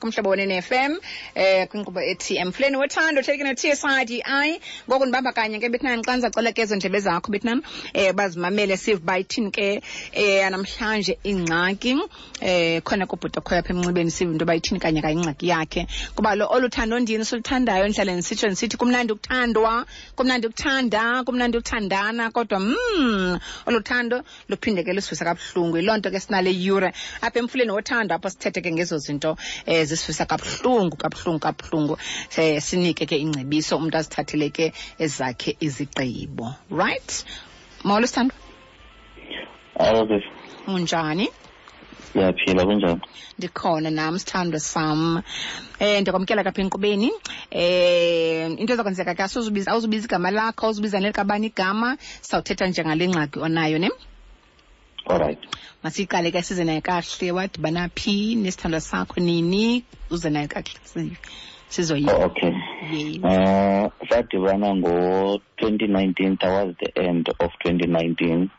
Kumhlobo Wenene FM, kwinkqubo ethi Emfuleni Wothando, taken no-TSIDI. Ngoku ndibamba kanye ke bethunani, xa ndizacela ke ezo ndlebe zakho bethunani, bazimamele sive uba ithini ke namhlanje ingxaki. Khona kubhuti okhoyo apha emnxibeni, sive into yoba ithini kanye kanye ingxaki yakhe. Kuba lo olu thando ndini siluthandayo, ndihlale ndisitsho ndisithi kumnandi ukuthandwa, kumnandi ukuthanda, kumnandi ukuthandana, kodwa olu thando luphinde ke lusivisa kabuhlungu. Yiloo nto ke sinale yure apha Emfuleni Wothando, apho sithethe ke ngezo zinto zisivisa kabuhlungu, kabuhlungu, kabuhlungu. Sinike ke ingcebiso, umntu azithathele ke ezakhe izigqibo. Right? Molo sithandwa. Alo sisi. Unjani? Ndiyaphila, kunjani? Ndikhona nam sithandwa sam. Ndiyakwamkela kapha enkqubeni. Into ezakwenzeka ke, awuzubiza igama lakho, awuzubiza nelikabani igama, sawuthetha njengale ngxaki onayo, ne? All right. Masiyiqale ke, size nayo kakuhle. Wadibana phi nesithandwa sakho, nini? Uze nayo kakuhle, sizoyiva. Oh, okay. Yes. Sadibana ngo-2019, towards the end of 2019.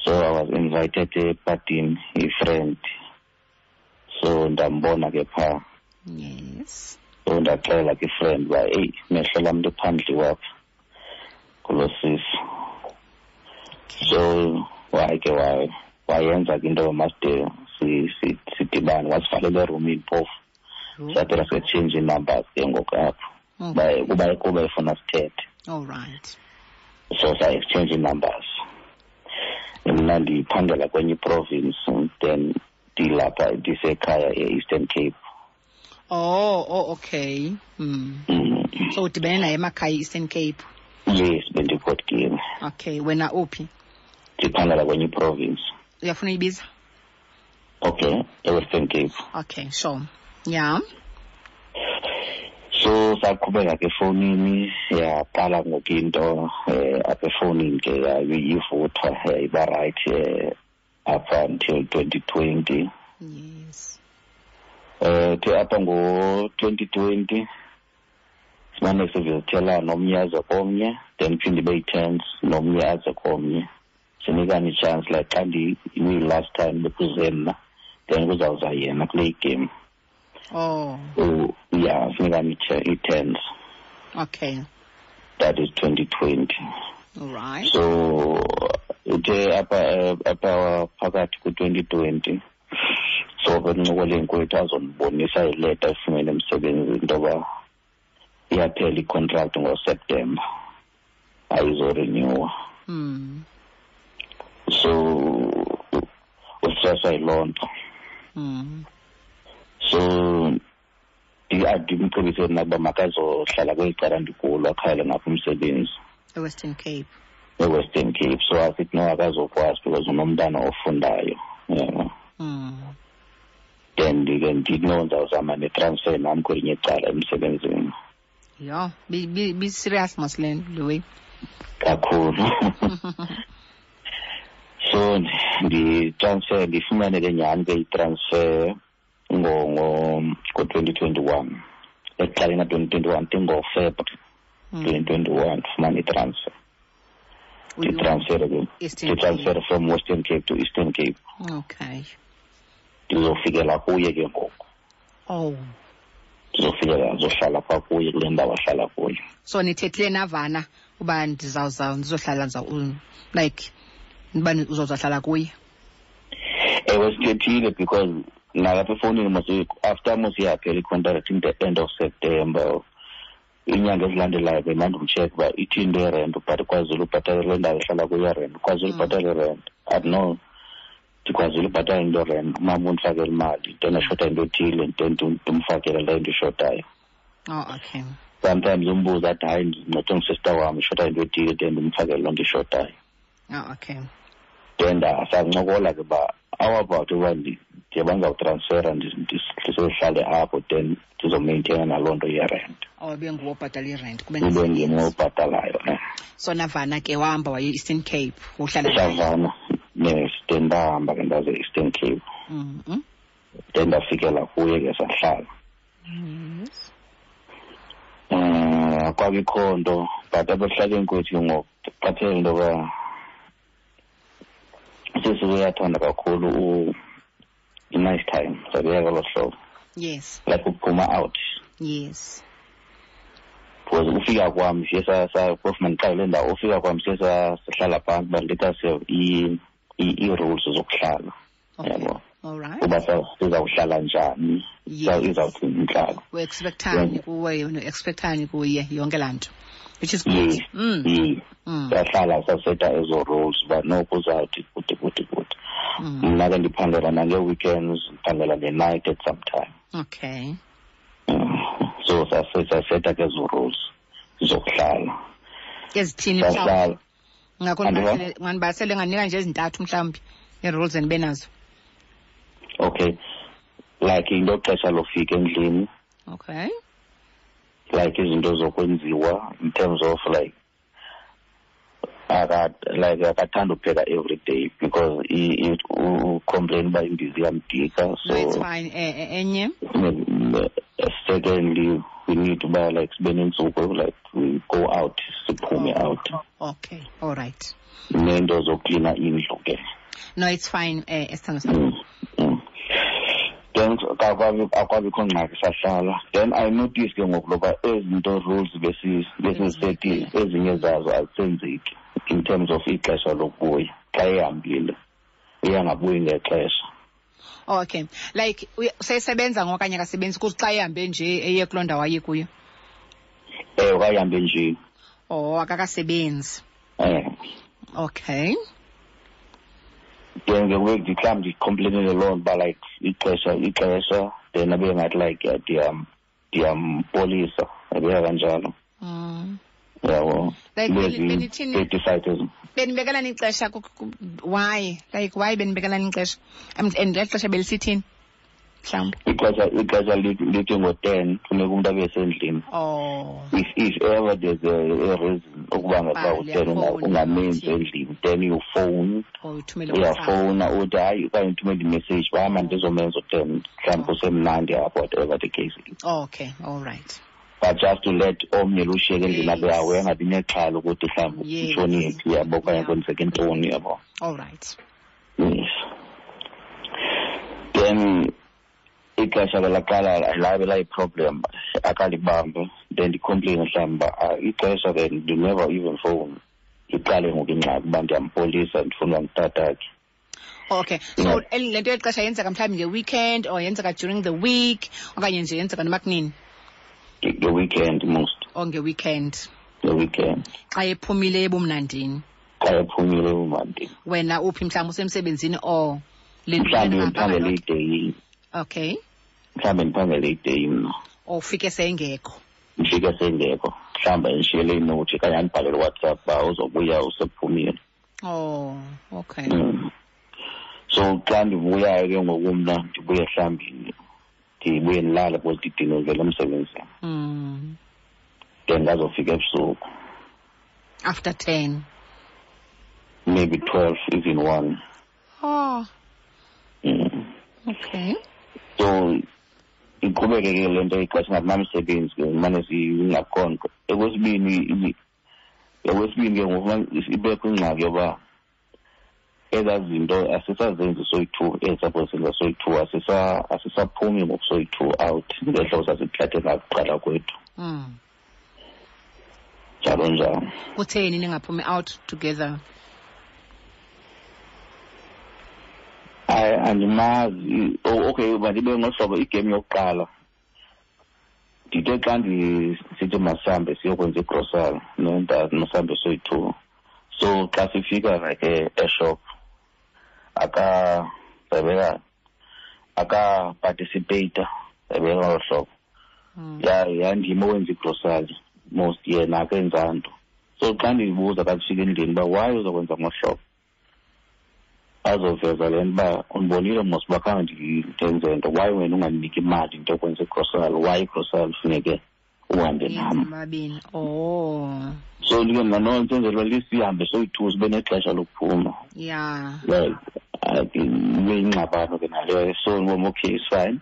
So I was invited epartini, a friend. So ndambona ke pha. So ndaxela ke friend uba, hey, mehlo lam nto phandle wapha kulo sisi. So waye ke wayenza ke into yoba maside sidibane, wasivalela erumini phofu. Saphela setshintsha ii-numbers ke ngoku apho. Kuba efuna sithethe. All right. So sa-exchange ii-numbers. Mna ndiphangela kwenye iprovince, then ndilapha ndisekhaya e-Eastern Cape. Oh, oh, okay. So udibene naye emakhaya e-Eastern Cape? Yes, bendiPort. Okay, wena uphi? Ndiphangela kwenye iprovince. Uyafuna uyibiza? Okay, e-Western Cape. Okay, sure. Yeah. So saqhubeka ke efowunini, yaqala ngoku into apha efowunini ke yayivutha, yayiba right up until 2020. The apha ngo-2020 simane sivizithelana, omnye aze komnye, then phinde ibe yi-tense, nomnye aze komnye. Sinikane i-chance, like xa last time bekuze mna, then kuzawuza yena kule game. Yeah, sinikane i-tense. That is 2020. All right. So uthe apha phakathi ku-2020, so bencokoleni kwethu azondibonisa ileta efumene emsebenzini into yoba iyaphela i-contract ngoSeptember, ayizorenewa. So ustresswa yiloo nto. So ndimcebise mna ukuba makazohlala kweli cala ndikulo, akhayele ngapha umsebenzi. E-Western Cape. E-Western Cape. So asithi no, akazokwazi because unomntana ofundayo. Yeah. Then ndike ndithi no, ndizawuzama ne-transfer nam kwelinye icala emsebenzini. Yho, be serious mos le nto, le way. Kakhulu. So ndi-transfer, ndifumane ke nyhani ke i-transfer ngo-2021. Ekuqaleni ka-2021, ndingoFebruary 2021, ndifumane i-transfer. Ndi-transfer ke, Eastern ndi-transfer Cape. from Western Cape to Eastern Cape. Ndizofikela kuye ke ngoku. Ndizofikela, ndizohlala phaa kuye kule ndawo ahlala kuyo. So nithethile navana uba ndizawuza, ndizohlala, like, uba uzohlala kuye? Ewe, sithethile because nalapha efowunini mos, after mos iyaphela i-contract in the end of September, iinyanga ezilandelayo bendandimcheck uba ithini into yerent, but kwazile ubhatala le ndawo ehlala kuyo irent, kwazile ubhatala irent. Athi no, ndikwazile ubhatala into yerent, umama undifakele imali, then ashota into ethile, then ndimfakele le nto ishotayo. Oh, okay. Sometimes umbuzo athi hayi, ndincedwe ngusister wam, ishota into ethile, then ndimfakele loo nto ishotayo. Oh, okay. Then sancokola ke uba how about uba ndiye bandizawutransfera, ndizohlale apho, then ndizomaintaina naloo nto yerent. Oh, ibe nguwe obhatala irent, kube Ibe ngezinye. ndim obhatalayo, eh. So navana ke, wahamba waye e-Eastern Cape, uhlala naye? Savana, yes, then ndahamba ke ndaze e-Eastern Cape. Then ndafikela kuye ke sahlala. Akwabikho nto, but abahlali kwethu ngoku qaphela into yoba sisi uyathanda kakhulu i-nice time, sabeka ngolo hlobo. Yes. Like ukuphuma out. Yes. Because ufika kwam siye phofu mandiqale le ndawo, ufika kwam siye sahlala phantsi uba let us have ii-rules zokuhlala. Yabo. All right. Uba sizawuhlala njani, izawuthini intlalo. U-expectani kuwe, no-expectani kuye, yonke laa nto. Which is good. Yes. Yes. Sahlala saseta ezo rules uba noko uzawuthi kude kude kude. Mna ke ndiphangela nangee-weekends, ndiphangela nge-night at some time. Okay. So saseta ke ezo rules zokuhlala. Ezithini mhlawumbi? Ngakho nganibasele nganika nje ezintathu mhlawumbi ii-rules endibe nazo. Okay. Like into xesha lofika endlini. Okay. Like izinto zokwenziwa in terms of like akathanda ukupheka every day because u-complain uba imbiza iyamdika. So no, it's fine. Enye. Secondly, we need uba like sibe nentsuku like we go out, siphume out. Okay, all right. Nento zoklina indlu ke. No, it's fine, esithando sami. Then akwabikho ngxaki sahlala. Then I notice ke ngoku loba ezinto rules besizisetile ezinye zazo azisenzeki in terms of ixesha lokubuya. Xa ehambile uyangabuyi ngexesha. Okay. Like usesebenza ngokanye akasebenzi kuthi xa ehambe nje eye kuloo ndawo aye kuyo? Wayehambe nje. Oh, akakasebenzi. Okay. Then ke ngoku mhlawumbi ndicomplainele loo nto uba like ixesha then abe ngathi like ndiyampolisa, yabeka kanjalo. Yabo. Like benithini? Benibekelani ixesha why? Like why benibekelani ixesha? And le xesha belisithini? Mhlawumbi. Ixesha lithi ngo-10 funeka umntu abe sendlini. Oh. If ever there's a reason ukuba ngaba u-10 ungamenzi endlini, then you phone. Uyafowuna uthi hayi okanye uthumele imessage uba hamba ndizomenza u-10 mhlawumbi kusemnandi apho, whatever the case is. Okay, all right. But just to let omnye lushiyeke endlini abe awe angabi nexhala ukuthi mhlawumbi utshonile, yabo, okanye kwenzeke ntoni, yabo. All right. Yes. Then ixesha ke laqala labe layi-problem, akalibambe. Then ndicomplain mhlawumbi uba ixesha ke you never even phone. Iqale ngoku ingxaki uba ndiyampolisa, ndifuna uba ngutatakhe. Okay. So le nto yexesha yenzeka mhlawumbi nge-weekend or yenzeka during the week okanye nje yenzeka noma kunini? Nge-weekend most. Oh, nge-weekend. Nge-weekend. Xa ephumile ebumnandini. Xa ephumile ebumnandini. Wena uphi mhlawumbi usemsebenzini or le mhlawumbi ndiphangele ideyi. Okay. Mhlawumbi ndiphangele ideyi mna. Or ufike sengekho. Ndifike sengekho. Mhlawumbi ndishiyele inothi okanye andibhalele WhatsApp uba uzobuya usephumile. Oh, okay. So xa ndibuyayo ke ngoku mna ndibuye mhlawumbi ndibuye ndilale because ndidinwe ndivela emsebenzini. Then ndazofika ebusuku. After 10. Maybe 12, even 1. Oh. Okay. So iqhubeke ke le nto ixesha ngathi namsebenzi ke mane singakhonto. Okwesibini ke ngoku ibekho ingxaki yoba ezaa zinto asisazenzi soyi-2, ezisaposenza soyi-2, asisaphumi ngoku soyi-2 out ngehlobo sasithathe ngakuqala kwethu. Njalo njalo. Kutheni ningaphumi out together? Andimazi. Okay, mandibe ngohlobo igame yokuqala. Ndithe xa ndisithi masihambe siyokwenza igrosari, masihambe soyi-2. So xa sifika like eshop aka-participate ebeka ngolo hlobo. Yandim owenza igrosari most, yena akenza nto. So xa ndiyibuza xa sifika endlini uba why uzokwenza ngohlobo, azoveza le nto uba undibonile mos uba khange ndenze nto, why wena ungandiniki imali into yokwenza igrosari, why igrosari funeke uhambe nam. Oh. So ndike mna no ndisenzela uba sihambe soyi-2 sibe nexesha lokuphuma. Yeah. Like ibe yingxabano ke naleyo. So ndibona okay, it's fine.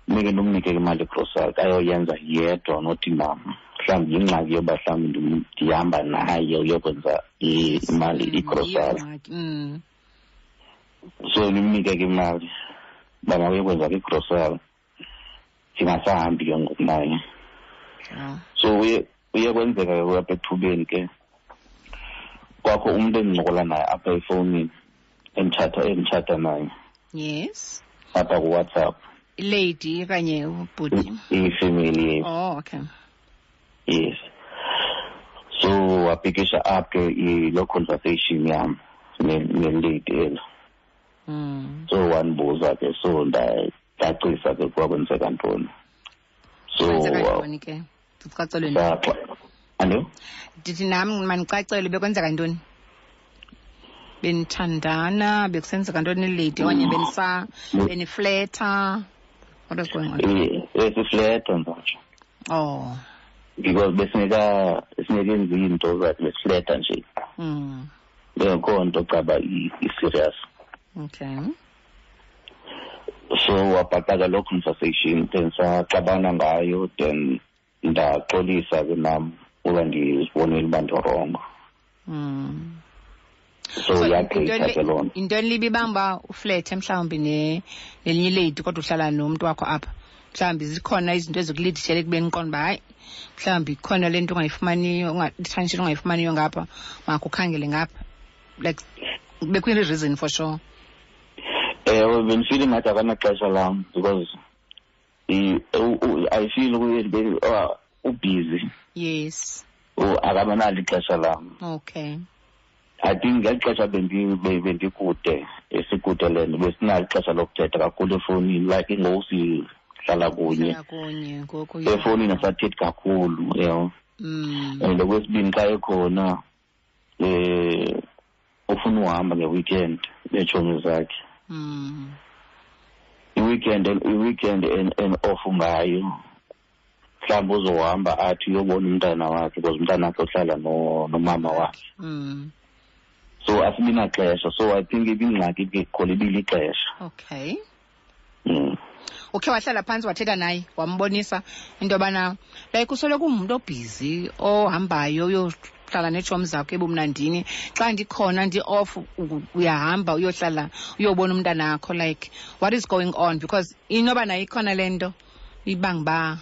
Ndike ndimnike imali yegrosari ayoyenza yedwa not nam. Mhlawumbi yingxaki yoba mhlawumbi ndihamba naye uyokwenza imali igrosari. So ndimnike ke imali uba makayokwenza ke igrosari. Ndingasahambi ke ngoku naye. So uye kwenzeka ke apha ethubeni ke kwakho umntu endincokola naye apha efowunini, enditshata naye. Yes. Apha kuWhatsApp. Lady okanye ubhuti? Ifamily, yes. Oh, okay. Yes. So wapikisha up ke lo conversation yam nelady elo. So wandibuza ke, so ndacacisa ke kwakwenzeka ntoni. So Kwenzeka ntoni ke? Ndicacelwe ntoni? Alo? Ndithi nam mandicacelwe bekwenzeka ntoni? Benithandana, bekusenzeka ntoni lady okanye benifleta? What was going on? Besifleta nje. Oh. Because besingekenzi into zathi besifleta nje. Bengekho nto caba i-serious. Okay. So wabhaqaka loo conversation, then saxabana ngayo, then ndaxolisa ke nam uba ndizibonile uba ndirongo. So yagqitha ke loo nto. Yintoni libi ibanga uba uflethe mhlawumbi nelinye ilady kodwa uhlala nomntu wakho apha? Mhlawumbi zikhona izinto ezikulidishele ekubeni uqonde uba hayi, mhlawumbi ikhona le nto ungayifumaniyo, i-attention ungayifumaniyo ngapha, makukhangele ngapha. Like, bekuyini reason for sure? Ewe, bendifile ngathi akanaxesha lam because I feel ubusy. Yes. Akabanalo ixesha lam. Okay. I think ngeli xesha bendikude, esikude le nto, besinalo ixesha lokuthetha kakhulu efowunini, like ngoku sihlala kunye. Sihlala kunye ngoku, yeah. Efowunini asathethi kakhulu, yabo. And okwesibini xa ekhona, ufuna uhamba nge-weekend neetshomi zakhe. I-weekend and off ngayo. Mhlawumbi uzohamba athi uyobona umntana wakhe because umntana wakhe uhlala nomama wakhe. So asibi naxesha. So I think ibingxaki ke khona ibilixesha. Okay. Ukhe wahlala phantsi wathetha naye, wambonisa into yobana like usoloko ungumntu obhizi ohambayo uyohlala neetshomi zakho ebumnandini. Xa ndikhona ndi-off uyahamba uyohlala uyobona umntanakho, like what is going on? Because inoba nayo ikhona le nto ibanga uba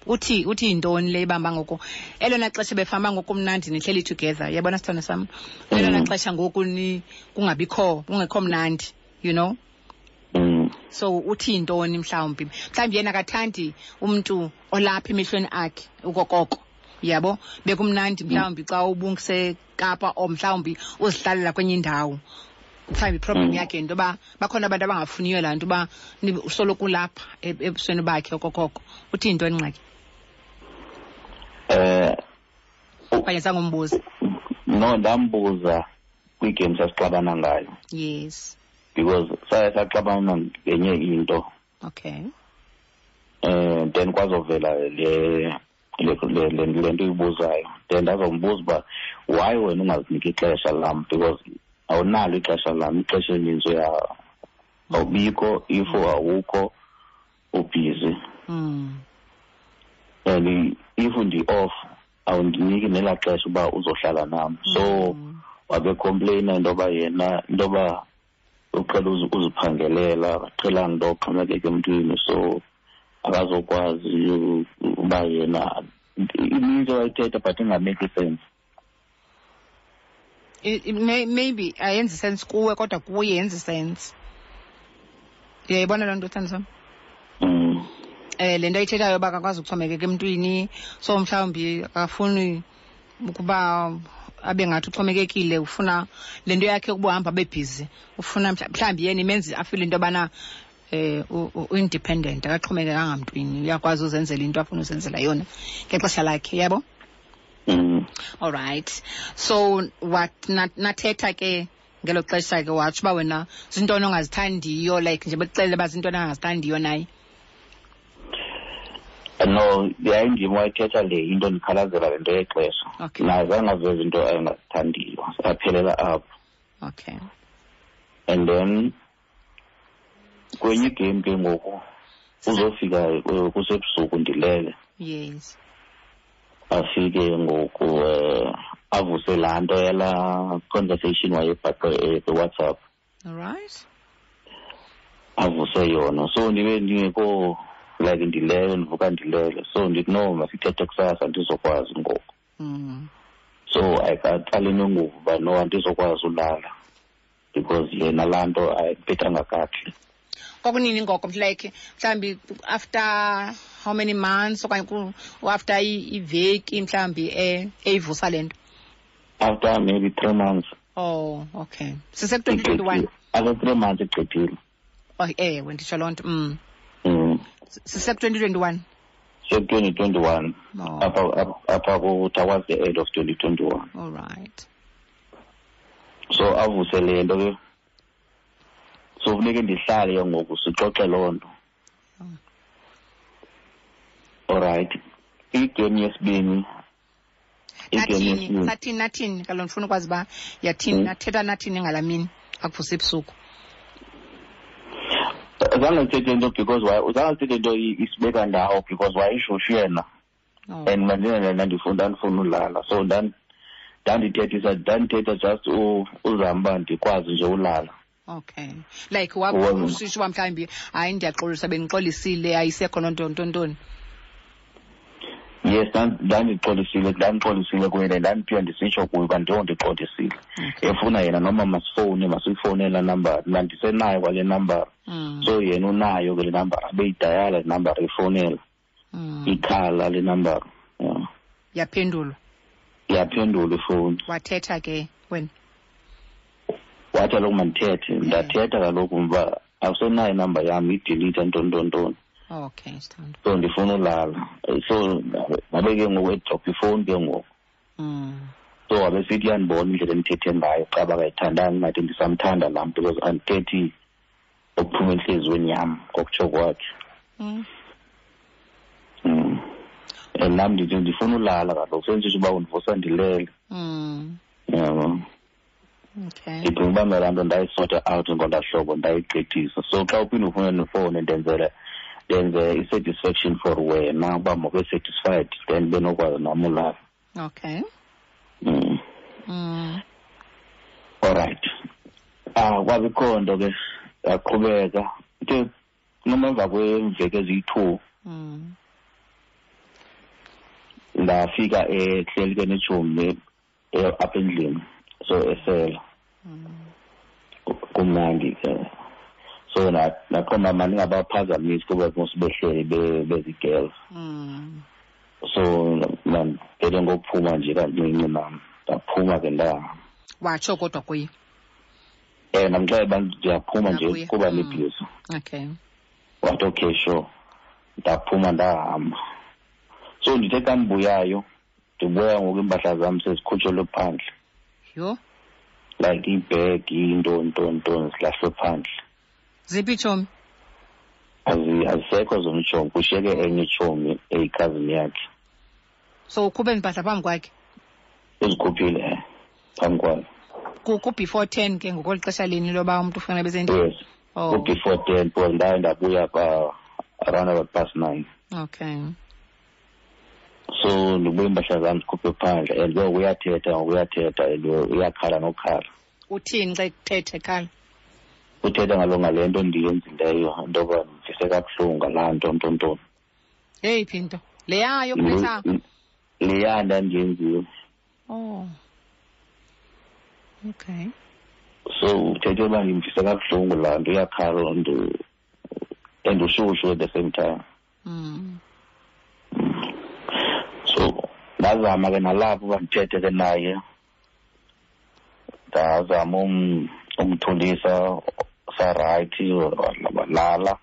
uthi yintoni le ibamba ngoku? Elona xesha befamba ngoku mnandi nihleli together, uyabona sithando sam? Elona xesha ngoku kungabikho, kungekho mnandi, you know? So uthi yintoni mhlawumbi? Mhlawumbi yena akathandi umntu olapha emehlweni akhe ukokoko, uyabo? Bekumnandi mhlawumbi xa ubungiseKapa or mhlawumbi uzihlalela kwenye indawo. Mhlawumbi iproblem yakhe yinto yoba bakhona abantu abangafuniyo laa nto uba usoloko ulapha ebusweni bakhe okokoko. Uthi yintoni ingxaki? Okanye sangombuza? No, ndambuza kwiigame sasixabana ngayo. Yes. Because saye saxabana ngenye into. Okay. Then kwazovela le nto uyibuzayo. Then ndazombuza uba why wena ungaziniki ixesha lam, because awunalo ixesha lam, ixesha elininzi awubikho, if awukho ubhizi. And if ndi-off awundiniki nelaa xesha uba uzohlala nam. So wabe complaina into yoba yena, into yoba uqhela uziphangelela, akaqhelanga into yoxhomekeka emntwini, so akazokwazi uba yena ininzi wayithetha but ingameki sense. Maybe ayenzi sense kuwe kodwa kuye yenzi sense. Uyayibona loo nto, sithando sam? Le nto ayithethayo uba akakwazi ukuxhomekeka emntwini, so mhlawumbi akafuni ukuba abe ngathi uxhomekekile, ufuna le nto yakhe ukuba uhamba abe busy, ufuna mhlawumbi yena imenze afile into yobana u-independent, akaxhomekekanga mntwini, uyakwazi uzenzela into afuna uzenzela yona ngexesha lakhe, yabo? All right. So what nathetha ke ngelo xesha ke watsho uba wena zintoni ongazithandiyo, like nje bekuxelele uba zintoni angazithandiyo naye? No, yayindim wayithetha le into, ndikhalazela le nto yexesha. Okay. Naye zange aveze into ayengazithandiyo, aphelela apho. Okay. And then kwenye igame ke ngoku uzofika kusebusuku ndilele. Yes. Afike ngoku avuse laa nto yalaa conversation wayebhaqe kwiWhatsApp. All right. Avuse yona. So ndibe ndingekho Like ndilele, ndivuka ndilele. So ndithi no, masithethe kusasa, andizokwazi ngoku. So ayikaqali nenguvu uba no, andizokwazi ulala because yena laa nto ayiphethanga kakuhle. Kwakunini ngoko, like mhlawumbi after how many months okanye after iveki mhlawumbi eyivusa le nto? After maybe 3 months. Oh, okay. Sise-2021? After 3 months igqithile. Oh, ewe, nditsho loo nto. Sise-2021? Sise-2021. Oh. Apha towards the end of 2021. All right. So avuse le nto ke. So funeke ndihlale ke ngoku sixoxe loo nto. All right. Igame yesibini. Nathini, nathini, kaloku ndifuna ukwazi uba yathini, nathetha nathini ngalaa mini akuvusa ebusuku. Zange ndithethe into because zange ndithethe into isibeka ndawo because wayeshushu yena. Oh. And mandinene ndandifuna ulala. So ndandithetha just uzama uba ndikwazi nje ulala. Okay. Like usisho uba mhlawumbi hayi ndiyaxolisa, bendixolisile, ayisekho loo nto, nto, ntoni. Yes, ndandixolisile kuye, ndandiphiwa ndisitsho kuye uba ndiyo ndixolisile. Okay. Efuna yena noma masifowune, masiyifowune laa nambara. Mna ndisenayo kwale nambara. So yena unayo ke le nambara, abeyidayala le nambara, efowunela. Ikhala le nambara. Yeah. Yaphendulwa? Yaphendulwa ifowuni. Wathetha ke wena? Wathi kaloku mandithethe. Ndathetha kaloku uba awusenayo inamba yam, idelete ntoni, ntoni, ntoni. Okay, sithando. So ndifuna ulala. So ngabe ke ngoku edrop ifowuni ke ngoku. So wabe sithi uyandibona indlela endithethe ngayo, xa bakayithandanga ngathi ndisamthanda laa mntu because andithethi okuphuma entliziyweni yam ngokutsho kwakhe. And nam ndithi ndifuna ulala kaloku, sendisitsho uba undivusa ndilele. Yabo. Okay. Ndicinga uba mna laa nto ndayisota out ngolaa hlobo, ndayigqithisa. So xa uphinde ufune nefowuni ndenze i-satisfaction for wena uba mawube satisfied, then benokwazi nam ulala. Okay. All right. Kwabikho nto ke yaqhubeka. Ke noma emva kweemveki eziyi-2, ndafika ehleli ke netshomi apha endlini, so esela. Kumnandi ke. So naqonda mna ndingabaphazamisi kuba mos behleli bezi-girls. So ndandivele ngokuphuma nje kancinci nam, ndaphuma ke ndahamba. Watsho kodwa kuye? Ndamxelela uba ndiyaphuma nje Ndakuya. kuba ndibhizi. Okay. Wathi okay sure. Ndaphuma ndahamba. So ndithe xa ndibuyayo, ndibuya ngoku iimpahla zam sezikhutshelwe phandle. Yho. Like iibhegi, into, nto, nto, zilahlwe phandle. Ziphi itshomi? Azisekho zona itshomi, kushiyeke enye itshomi eyikhazini yakhe. So ukhuphe iimpahla phambi kwakhe? Uzikhuphile, phambi kwakhe. Ku-before 10 ke ngokweli xesha lini loba umntu ufuna abe sendlini? Yes. Oh. Ku-before 10, because ndaye ndabuya pa around about past 9. Okay. So ndibuye iimpahla zam zikhuphe phandle, and ke uyathetha, uyathetha, and uyakhala nokhala. Uthini xa ethetha ekhala? Uthetha ngale nto ndiyenzileyo, into yoba ndivise kabuhlungu ngalaa nto, nto, nto. Eyiphi into? Leya yokubetha? Leya ndandiyenziwe. Oh. Okay. So uthethe uba ndimvise kabuhlungu laa nto, uyakhala and ushushu at the same time. So ndazama ke nalapho uba ndithethe ke naye. Ndazama umthulisa, sarayithi, walala.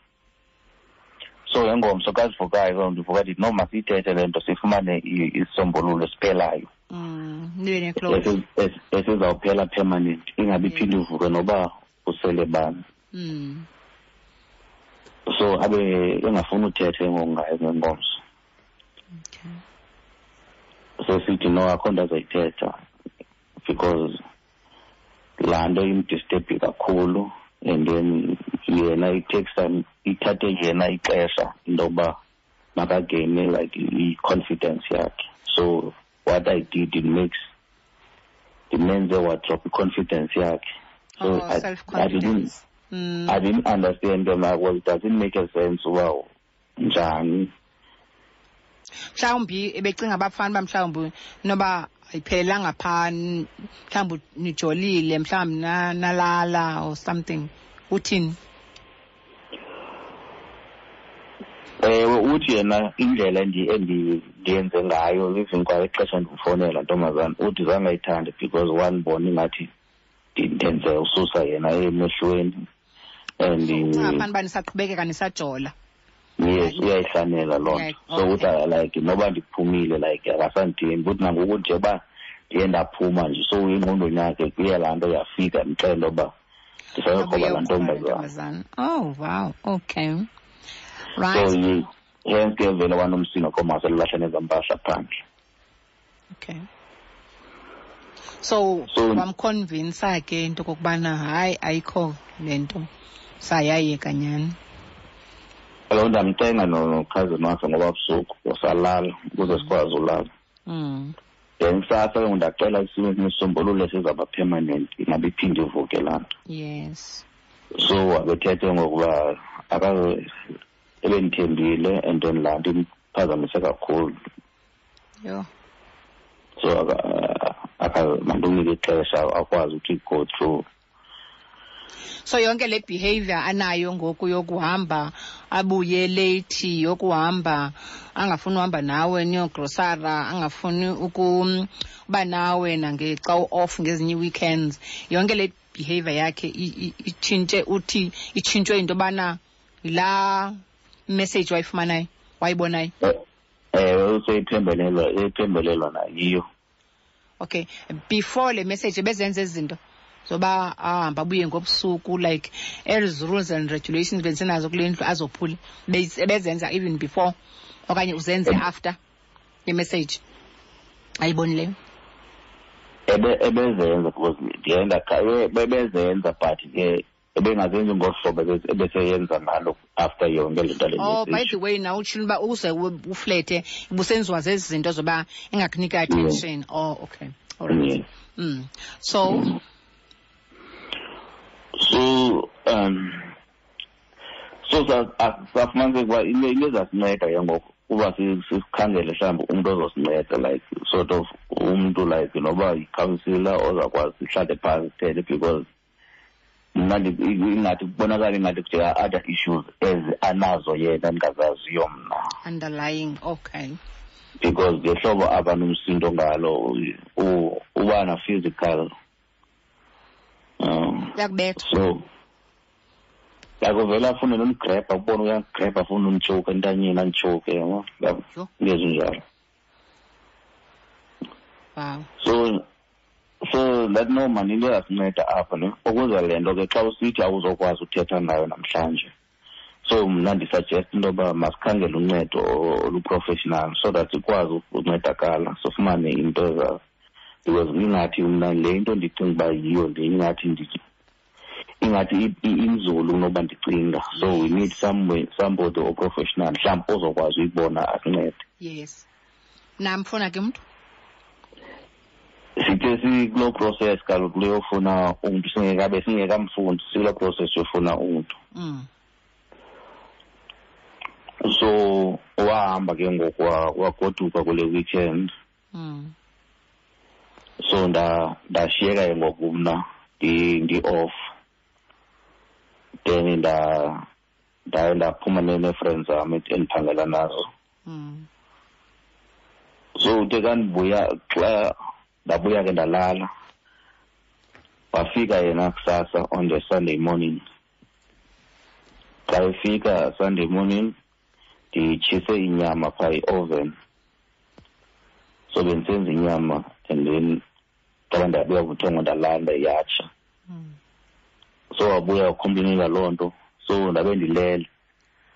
So ngengomso xa sivukayo ke ndivuka ndithi no, masiyithethe le nto sifumane isisombululo esiphelayo. Nibe ne-close. Esizawuphela permanent, ingabi iphinde ivuke noba usele bani. So abe engafuni uthethe ngoku ngayo ngengomso. Okay. So sithi no, akho nto azoyithetha because laa nto imdisturbe kakhulu, and then yena it takes time, ithathe yena ixesha into yokuba makagaine like i-confidence yakhe. So what I did, it makes ndimenze wadrop i-confidence yakhe. So Oh, I self-confidence. didn't, I didn't understand them. Well, it doesn't make a sense. Wow, Njani? Mhlawumbi ebecinga abafana uba mhlawumbi noba ayiphelelanga phaa, mhlawumbi nijolile, mhlawumbi nalala or something. Uthini? Ewe, uthi yena indlela endiyenze ngayo, even kwa ixesha ndimfowunela, ntombazana, uthi zange ayithande because wandibona ingathi ndenze ususa yena emehlweni and Ucinga fana uba nisaqhubekeka nisajola. Yes, uyayihlanela loo nto. So uthi like noba ndiphumile, like akasandithembi. Uthi nangoku nje uba ndiye ndaphuma nje, so engqondweni yakhe kuye laa nto yafika ndixele uba ndisayokroba laa ntombazana. Oh wow, okay, right. So hence ke vele wanomsindo komaselulahla nezampahla phandle. Okay, so wamconvinsa ke into okokubana hayi, ayikho le nto, sayayeka nyhani. Kaloku ndamcenga nokhazini wakhe ngoba busuku wasalala ukuze sikwazi ulala. Then kusasa ke ngoku ndacela isisombululo esizawuba permanent, ingabe iphinde ivuke laa nto. So wabethethe ngokuba ebendithembile and then laa nto imphazamise kakhulu. So mandimnike ixesha akwazi ukuthi go through. So yonke le behavior anayo ngoku yokuhamba abuye late, yokuhamba angafuni uhamba nawe niyogrosara, angafuni ukuba nawe nangexa u-off ngezinye ii-weekends, yonke le behavior yakhe itshintshe, uthi itshintshwe into yobana yilaa message wayifumanayo, wayibonayo? Ewe, useyiphembelelwa nayiyo. Okay, before le message ebezenza ezi zinto zoba ahamba abuye ngobusuku, like ezi rules and regulations bendisenazo kule ndlu azophule, ebezenza even before okanye uzenze after le message ayibonileyo? Ebezenza because ndiye bebezenza, but ke ebengazenzi ngolu hlobo ebeseyenza ngalo after yonke le nto le Oh, by message. the way, nawe utshilo uba uze uflete ubusenziwa zezi zinto zoba engakunika attention. Oh, okay. All right. So? So safumaniseka uba into ezasinceda ke ngoku uba sikhangele mhlawumbi umntu ozosinceda, like sort of umntu like noba yikhansila ozakwazi sihlale phantsi sithethe, because mna ingathi kubonakala ingathi kujika other issues ezi anazo yena ndingazaziyo mna. Underlying, okay. Because ngehlobo aba nomsindo ngalo, uba na physical. Uyakubetha. So akuvele afune nomgrabha, ubone uyagrabha, afune umtshoke entanyeni, anditshoke, yabo. Yabo. Yho. Into ezinjalo. Wow. So that no man, into yasinceda apha ne, ukuze le nto ke xa usithi awuzokwazi uthetha nayo namhlanje. So mna ndisuggest into yoba masikhangele uncedo oluprofessional so that sikwazi ukuncedakala, sifumane into eza, because ingathi mna le nto ndicinga uba yiyo le, ingathi ingathi inzulu kunoba ndicinga. So we need somebody oprofessional mhlawumbi ozokwazi uyibona asincede. Yes. Namfuna ke umntu? Sithe sikuloo process kaloku leyofuna umntu, singekabe singekamfundi, sikuloo process yofuna umntu. So wahamba ke ngoku wagoduka kule weekend. So ndashiyeka ke ngoku mna ndi-off. Then ndaye ndaphuma nee-friends zam endiphangela nazo. So uthe xa ndibuya, xa ndabuya ke ndalala, wafika yena kusasa on the Sunday morning. Xa efika Sunday morning, nditshise inyama phaa i-oven. So bendisenza inyama and then xa ndabuya buthongo ndalala ndayatsha. So wabuya wacomplainela loo nto. So ndabe ndilele.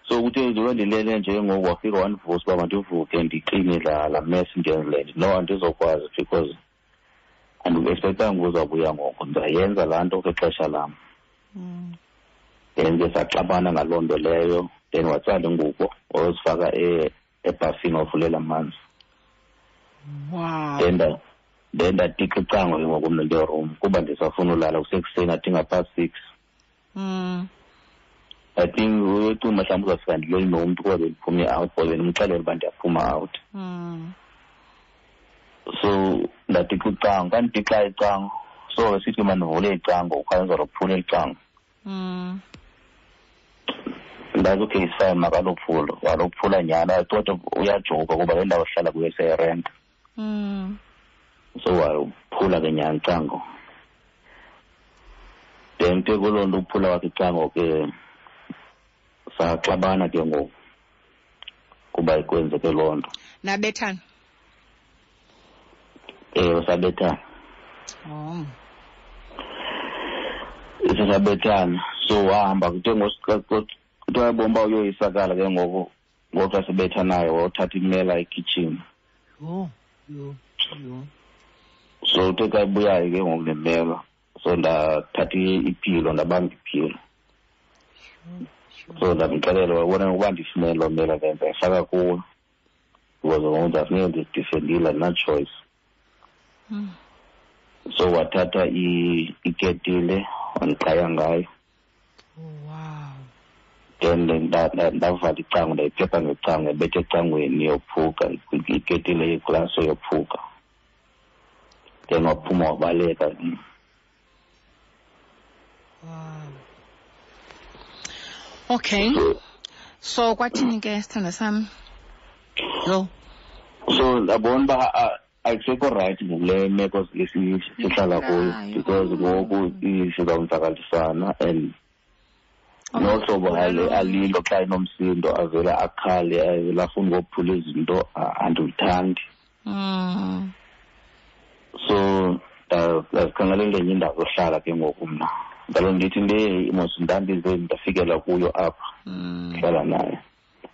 So kuthe njengoba ndilele nje ngoku wafika wandivusa uba mandivuke ndikline la mess ndiyenzile. No, andizokwazi because andiexpectanga uzawubuya ngoku, ndizayenza laa nto kwixesha lam. Then ke saxabana ngaloo nto leyo, then watsala ingubo wayozifaka ebhafini wavulela amanzi. Wow. Then ndatixa icango ke ngoku mna ngeroom kuba ndisafuna ulala kusekuseni, I think past 6. I think uyocinga mhlawumbi uzawufika ndileli nomntu kuba bendiphume out, or bendimxelele uba ndiyaphuma out. So ndadixa icango, kandidixa icango. So sithi mandivule icango, ukhanye uzalophula icango. Ndathi okay, it's fine, makalophula. Walophula nyhani, kodwa uyajoka kuba le ndawo sihlala kuyo siyayirenta. So waphula ke nyhani icango. Then ke kuloo nto uphula kwakhe icango ke saxabana ke ngoku kuba kwenzeke loo nto. Nabethana? Ewe, sabethana. Oh. Sisabethana. So wahamba kuthe kuthiwa yabona uba uyoyisakala ke ngoku, ngoxa sibethanayo wothatha imela ekhitshini. Yho, yho, yho. So uthe xa ebuyayo ke ngoku nemela, so ndathatha iphilo, ndabamba iphilo. So ndamxelela, wabona ukuba ndifumene loo mela ke ndayifaka kuwe. Because ngoku ndafuneka ndizidifendile, andina-choice. So wathatha iketile wandiqhaya ngayo. Wow. Then ndavala icango, ndayiphepha ngecango, yabetha ecangweni yophuka, iketile yeglasi yophuka. Then waphuma wabaleka. Wow. Okay. So kwathini ke sithanda sami? Yo. So ndabona uba akusekho rayithi ngokule meko sihlala kuyo, because ngoku sizawonzakalisana and nohlobo alilo xa enomsindo avele akhale, avele afune ukophula izinto, andilithandi. So ndazikhangelela enye indawo yohlala ke ngoku mna. Ndalo ndithi le mos ndandize ndafikela kuyo apha, hlala naye.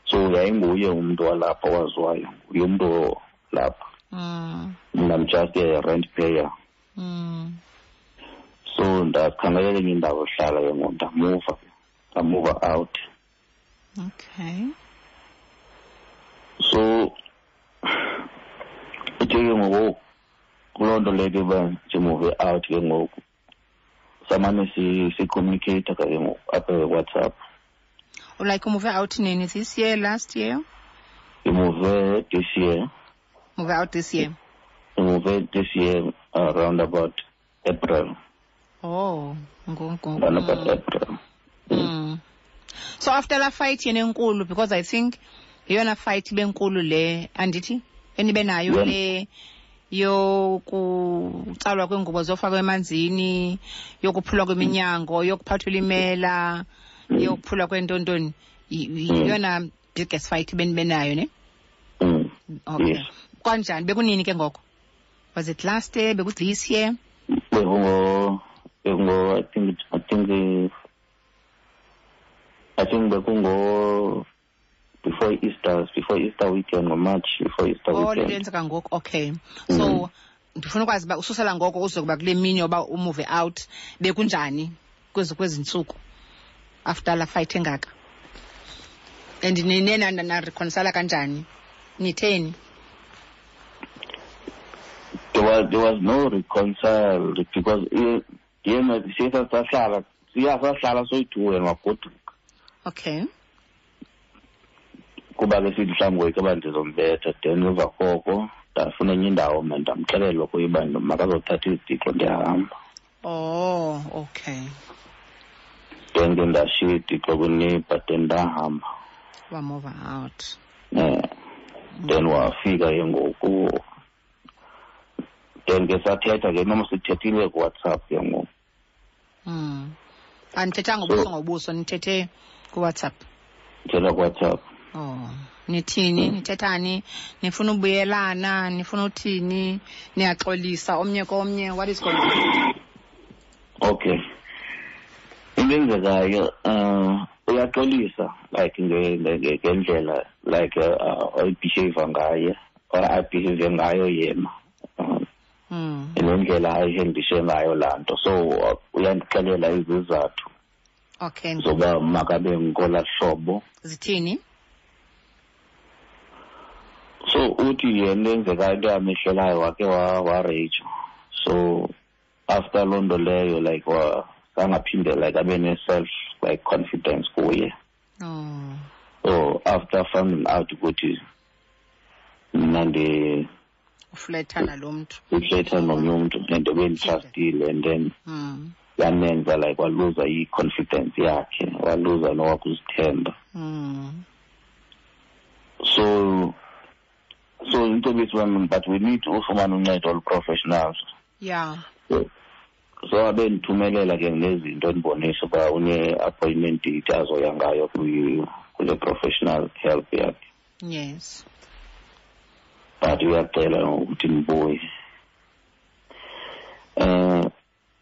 So yayinguye umntu walapha owaziwayo, nguye umntu lapha. Mna I'm just a rent payer. So ndakhangelela enye indawo yohlala ke ngoku, ndamuva out. Okay. So uthe ke ngoku kuloo nto leyo ke uba ndimuve out ke ngoku, samane si-communicate ke ngoku apha WhatsApp. Like umuve out nini? This year, last year? Ndimuve this year. Move out this year? Ndimuve this year around about April. Oh, ngoku. Around about April. So after la fight yena enkulu, because I think yeyona fight benkulu le, andithi? Enibe nayo le yokutsalwa kweengubo zofakwa emanzini, yokuphulwa kweminyango, yokuphathwa imela, yokuphulwa kwentontoni. Yeyona biggest fight benibe nayo, ne? Okay. Yes. Kanjani? Bekunini ke ngoko? Was it last year? Beku this year? Bekungo, I think bekungo before Easter, before Easter weekend, or March, before Easter Oh, weekend. lenzeka ngoku. Okay. So ndifuna ukwazi uba ususela ngoko uzokuba kule mini yoba umove out, bekunjani kwezi ntsuku after la fight engaka? And nine na reconcile kanjani? Nitheni? There was no reconcile because yena siye sahlala, siya sahlala soyi-two and wagoduka. Okay. Kuba ke sithi mhlawumbi ngoyika uba ndizombetha, then emva koko ndafuna enye indawo mna, ndamxelela kuye uba makazothatha izitixo ndiyahamba. Oh, okay. Then ke ndashiya izitixo kwineighbor, then ndahamba. Wamove out. Then wafika ke ngoku. Then ke sathetha ke, noma sithethile kuWhatsApp ke ngoku. Anithethanga ngobuso ngobuso, nithethe kuWhatsApp. Ndithetha kuWhatsApp. Oh, nithini? Nithethani? Nifuna ubuyelana? Nifuna uthini? Niyaxolisa omnye komnye? What is going on? Okay. Into eyenzekayo, uyaxolisa like ngendlela like ayibehave ngaye, or ayibehave ngayo yena. Ngendlela ayihendishe ngayo laa nto. So uyandixelela izizathu. Okay. Zoba makabe ngolaa hlobo. Zithini? So uthi yena enzeka into yamehlelayo wake wa-rage. So after loo nto leyo like sangaphinde like abe ne-self like confidence kuye. So after finding out ukuthi mna ndi ufletha nalo mntu, ufletha nomnye umntu and benditrustile, and then yamenza like waluza i-confidence yakhe, waluza nowakuzithemba. So into wami, but we need ufumana uncedo olu-professionals. So abe ndithumelela ke nezinto endibonisa uba une-appointment date azoya ngayo kule professional help yakhe. But uyacela ukuthi ndibuye.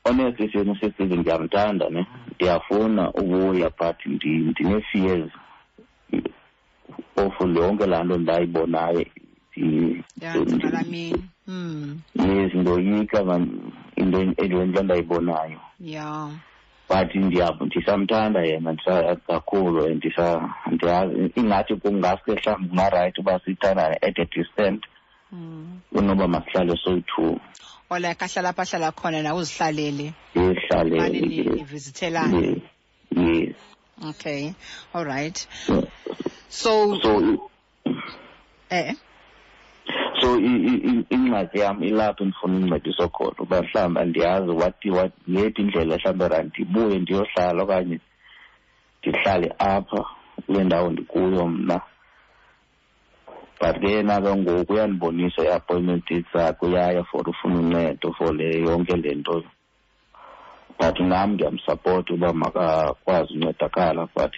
Honestly, sisi, ndiyamthanda ne, ndiyafuna ubuya, but ndine-fears of yonke laa nto ndayibonayo. Yes, ndoyika man into into endayibonayo. But ndisamthanda yena kakhulu, and ndiyazi ingathi kungaske mhlawumbi kungarayithi uba sithandane at a distance kunoba masihlale soyi-two. Or like ahlala apha ahlala khona nawe uzihlalele. Ndihlalele. Nivizithelane. Yes. Okay, all right. So So ingxaki yam ilapho ndifuna uncediso khona, uba mhlawumbi andiyazi what yephi indlela mhlawumbi ra ndibuye ndiyohlala okanye ndihlale apha kule ndawo ndikuyo mna. But ke yena ke ngoku uyandibonisa i-appointment dates zakhe, uyaya for ufuna uncedo for le yonke le nto. But nam ndiyamsapota uba makakwazi uncedakala, but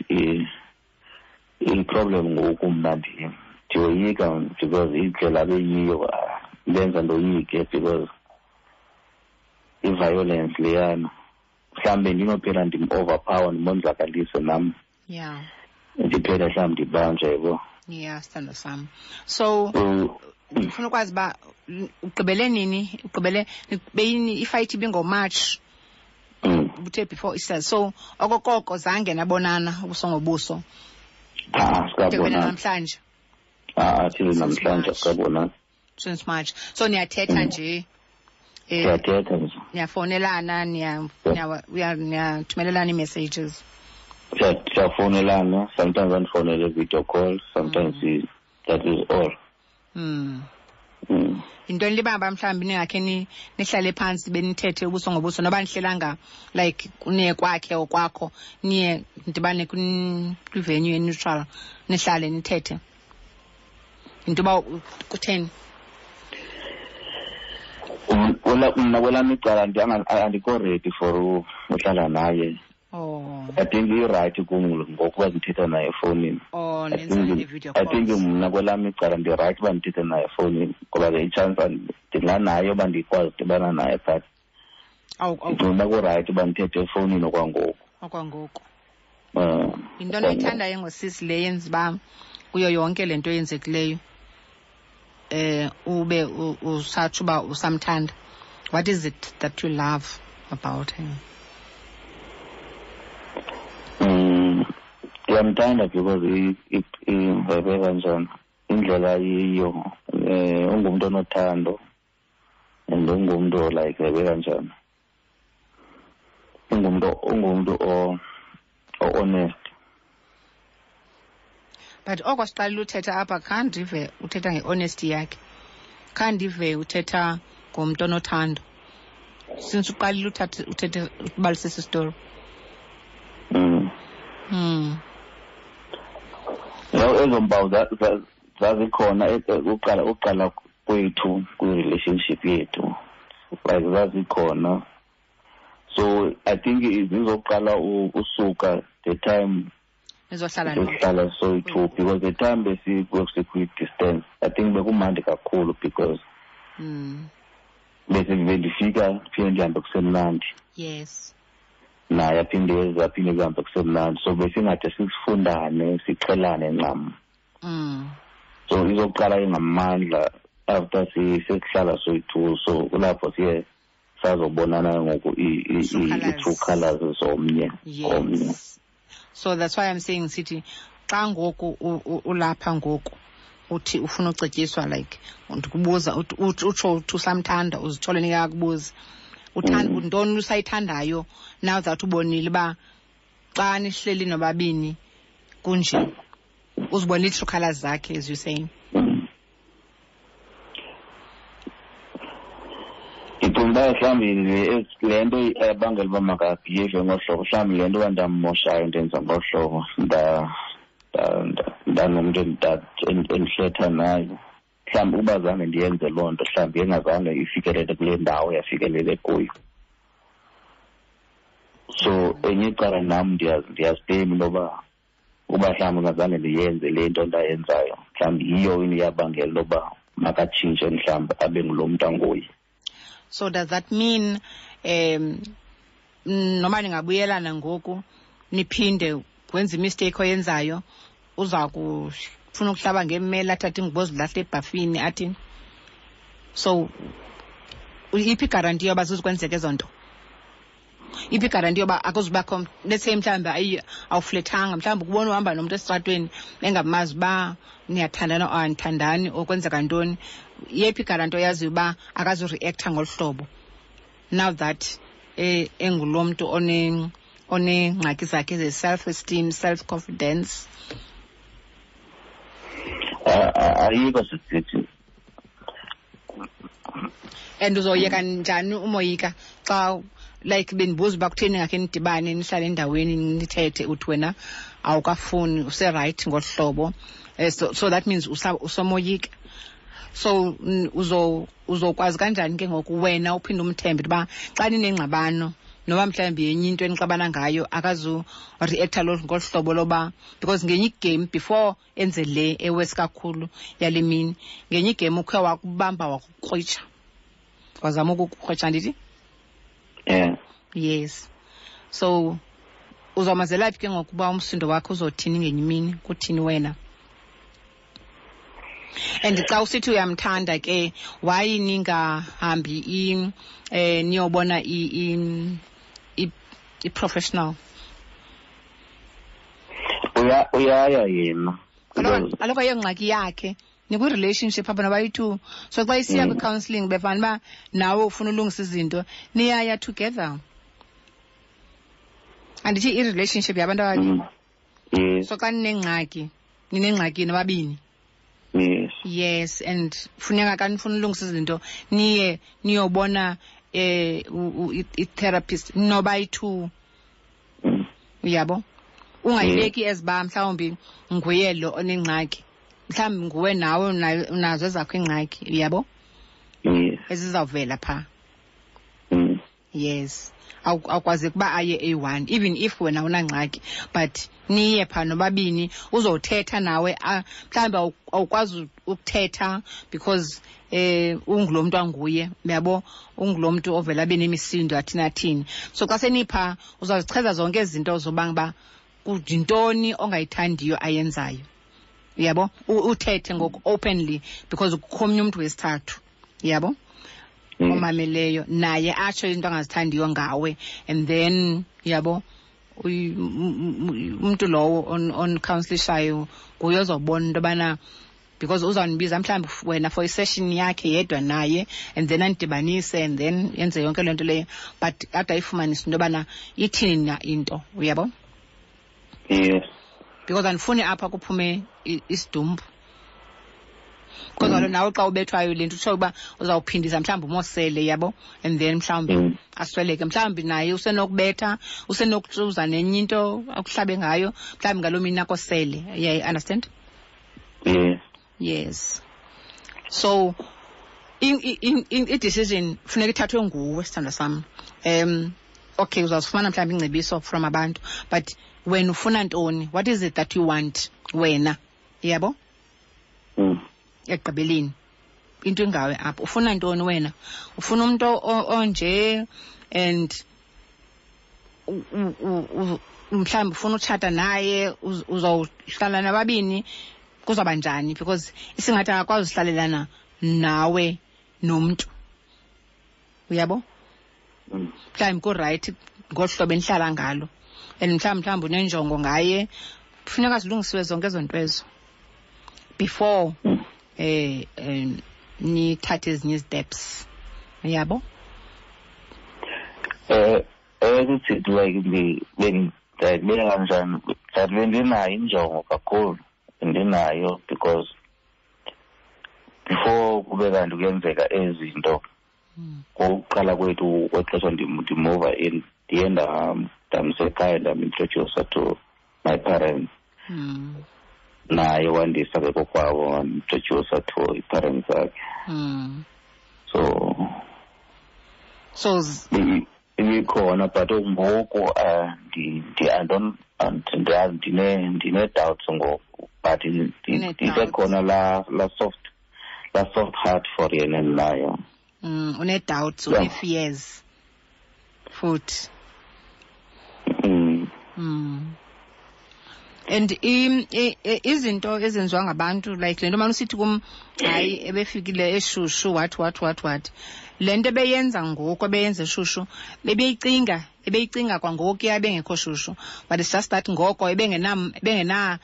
i-problem ngoku mna ndiyoyika because indlela abeyiyo lenza ndoyike, because i-violence leyana mhlawumbe ndinophela ndim-overpower, ndimonzakalise nam. Ndiphele mhlawumbi ndibanjwe, yabo. Yeah, sithando sam. So ndifuna ukwazi uba ugqibele nini? Ugqibele beyini ifight ibingoMarch. Uthe before Easter. So okokoko zange nabonana ubuso ngobuso. Sikabonana namhlanje. Till namhlanje sikabonana. Since March. So niyathetha nje. Siyathetha nje. Niyafonelana, niyathumelelana ii-messages. Siyafonelana, sometimes andifonele video call, sometimes that is all. Yintoni libamba mhlawumbi ningakhe nihlale phantsi benithethe ubuso ngobuso, noba nihlelanga like niye kwakhe okwakho, niye nidibane kwi-venue e-neutral, nihlale nithethe. Yinto uba kutheni? Mna kwelam icala andikho ready for uhlala naye. I think i-right kum ngokuba ndithetha naye efowunini. I think mna kwelam icala ndi-right uba ndithethe naye efowunini, ngoba ke i-chance ndinganayo uba ndikwazi udibana naye, but ndicinga uba kurayithi uba ndithethe efowunini okwangoku. Okwangoku. Yintoni oyithandayo ngosisi le yenza uba kuyo yonke le nto eyenzekileyo ube usatsho uba usamthanda? What is it that you love about him? Ndiyamthanda because ivebe kanjani indlela yiyo, ungumntu onothando and ungumntu like vebe kanjani, ungumntu o-honest. But oko siqalile uthetha apha, khandive uthetha nge-honesty yakhe, khandive uthetha ngomntu onothando. Since uqalile uthethe ubalisisa isitori. Ezo mpawu zazikhona uqala kwethu kwi-relationship yethu, like zazikhona. So I think zizoqala usuka the time nizohlala soyi-two, because the time besikwi-distance I think bekumandi kakhulu, because bendifika phinde ndihambe kusemnandi. Yes. Naye aphinde eze, aphinde kuhambe kusemnandi. So besingade sifundane, siqhelane ncam. So izoqala ingamandla after sesihlala soyi-two. So kulapho siye sazobonana ngoku i-true colours zomnye komnye. So that's why I'm saying sithi xa ngoku ulapha ngoku uthi ufuna ucetyiswa, like ndikubuza utsho uthi usamthanda, uzithole nikakubuza uthanda ntoni usayithandayo now that ubonile uba Xa nihleli nobabini kunje, uzibona ii-true colours zakhe, as you saying. Ndicinga uba mhlawumbi le nto ebangela uba makabhiyeve ngolu hlobo, mhlawumbi le nto uba ndammoshayo ndenza ngolu hlobo, ndanomntu endihletha naye. Mhlawumbi uba zange ndiyenze loo nto, mhlawumbi engazange ifikelele kule ndawo yafikelele kuyo. So enye icala nam ndiyaziblame into yoba uba mhlawumbi ngazange ndiyenze le nto ndayenzayo, mhlawumbi yiyo into eyabangela into yoba makatshintshe, mhlawumbi abe ngulo mntu anguye. So does that mean noma ningabuyelana ngoku niphinde wenze imistake oyenzayo, uza kufuna ukuhlaba ngemmela, athathe ingubo zilahle ebhafini athi? So iphi igaranti yoba zizukwenzeka ezo nto? Iphi igaranti yoba akuzubakho, let's say mhlawumbi awuflethanga, mhlawumbi ukubona uhamba nomntu esitratweni engamazi uba niyathandana or anithandani or kwenzeka ntoni, yephi igaranti oyaziyo uba akazureactha ngolu hlobo now that engulo mntu oneengxaki zakhe ze-self-esteem, self-confidence? Ayikho sisithi. And uzoyeka njani umoyika xa, like, bendibuza uba kutheni ngakhe nidibane nihlale endaweni nithethe, uthi wena awukafuni, userayithi ngolu hlobo. So that means usomoyika. So uzokwazi kanjani ke ngoku wena uphinde umthembe uba xa ninengxabano noba mhlawumbi yenye into enixabana ngayo akazureactha ngolu hlobo loba? Because ngenye igame before enze le ewesi kakhulu yale mini, ngenye igame ukhe wakubamba wakukrwitsha, wazama ukukukrwitsha, andithi? Yeah. Yes. So uzawumazela phi ke ngokuba umsindo wakho uzothini ngenye imini, kuthini wena? And xa usithi uyamthanda ke, why ningahambi niyobona i-professional? Uyaya yena. Kaloku ayongxaki yakhe, nikwi-relationship apha nobayi-two. So xa isiya kwi-counselling, befana uba nawe ufuna ulungisa izinto, niyaya together. Andithi i-relationship yabantu ababini? Yes. So xa ninengxaki, ninengxaki nobabini. Yes. Yes, and funeka xa nifuna ulungisa izinto niye niyobona i-therapist nobayi-two. Uyabo? Ungayibeki eziba mhlawumbi nguye lo onengxaki, mhlawumbi nguwe nawe unazo ezakho iingxaki, uyabo? Yes. Ezizawuvela phaa. Yes. Awukwazi ukuba aye eyi-one, even if wena unangxaki, but niye phaa nobabini, uzothetha nawe. Mhlawumbi awukwazi ukuthetha because ungulo mntu anguye, uyabo, ungulo mntu ovela abe nemisindo athini athini. So xa senipha uzazichaza zonke ezi zinto zobanga uba yintoni ongayithandiyo ayenzayo, uyabo, uthethe ngoku openly because kukho omnye umntu wesithathu, uyabo, omameleyo naye atsho into angazithandiyo ngawe, and then, uyabo, umntu lowo on-counselishayo nguye ozobona into yobana, because uzawunibiza mhlawumbi wena for isession yakhe yedwa naye, and then anidibanise, and then yenze yonke loo nto leyo, but ade ayifumanise into yobana ithini na into, uyabo? Yes. Because andifuni apha kuphume isidumbu. Because kaloku nawe xa ubethwayo le nto utsho uba uzawuphindisa mhlawumbi umosele, yabo, and then mhlawumbi asweleke. Mhlawumbi naye usenokubetha, usenokuzuza nenye into akuhlabe ngayo, mhlawumbi ngaloo mini akosele. Yeah, understand? Yes. Yes. So i-decision funeka ithathwe nguwe, sithandwa sam. Okay, uzawuzifumana mhlawumbi ingcebiso from abantu, but wena ufuna ntoni? What is it that you want wena? Yabo? Ekugqibeleni into ingawe apho, ufuna ntoni wena? Ufuna umuntu onje, and mhlawumbi ufuna utshata naye, uzawuhlala nababini, kuzawuba njani? Because isingathi akakwazi uhlalelana nawe nomntu, uyabo? Mhlawumbi kurayithi ngolu hlobo enihlala ngalo, and mhlawumbi unenjongo ngaye, funeka zilungisiwe zonke ezo nto ezo before nithathe ezinye steps, uyabo? Ukuthi like Ndayibeka kanjani, but bendinayo injongo kakhulu, bendinayo because before kube kanti kuyenzeka ezi zinto, ngokuqala kwethu kwexesha ndimuva in, ndiye ndamsekhaya, ndamintrodusa to my parents. Naye wandisa ke kokwabo, wandintrodusa to i-parents zakhe. So ibikhona, but ngoku I don't, ndine-doubts ngoku, but ndisekhona la soft heart for yena endinayo. Une-doubts, une-fears futhi. And izinto ezenziwa ngabantu, like le nto mane usithi kum, hayi, ebefikile eshushu, what what what what, le nto ebeyenza ngoku, ebeyenza eshushu, ebeyicinga kwangokuya ebengekho shushu, but it's just that ngoko ebengena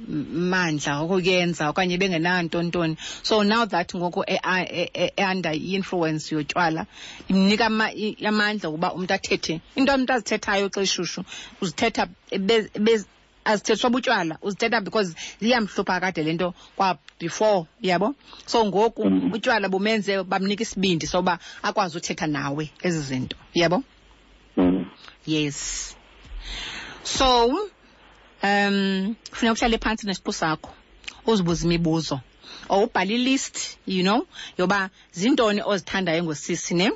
mandla okuyenza okanye ebengenanto ntoni. So now that ngoku e-under i-influence yotywala, imnika amandla ukuba umntu athethe into umntu azithethayo xa eshushu, uzithetha azithethiswa butywala, uzithetha because iyamhlupha kade le nto kwa before, yabo. So ngoku utywala bumenze bamnika isibindi soba akwazi uthetha nawe ezi zinto, yabo. Yes, so funeka uhlale phantsi nesiqu sakho, uzibuze imibuzo or ubhale ilist yoba zintoni ozithandayo ngosisi, ne,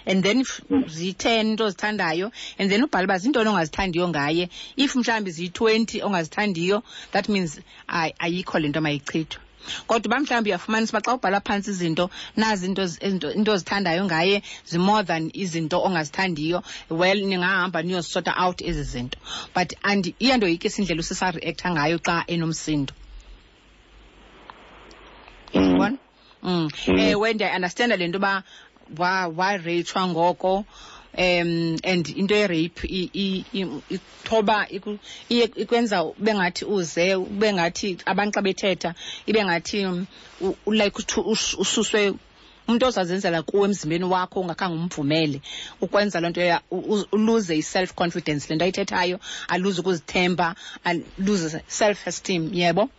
and then if ziyi-10 into ozithandayo, and then ubhale uba zintoni ongazithandiyo ngaye. If mhlawumbi ziyi-20 ongazithandiyo, that means ayikho le nto, mayichithwe. Kodwa uba mhlawumbi uyafumanisa uba xa ubhala phantsi izinto, nazi into ozithandayo ngaye zi-more than izinto ongazithandiyo, well, ningahamba niyozisorta out ezi zinto. But and iyandoyikisa indlela usisa-reacta ngayo xa enomsindo. Yabona? Ewe, ndiyayi-understanda le nto uba wareyitshwa ngoko, and into ye-rape ithoba, iye ikwenza ube ngathi uze ube ngathi abantu xa bethetha ibe ngathi like ususwe umntu ozazenzela kuwe emzimbeni wakho ungakhange umvumele ukwenza loo nto, uluze i-self confidence, le nto ayithethayo, aluze ukuzithemba, aluze self esteem, yebo,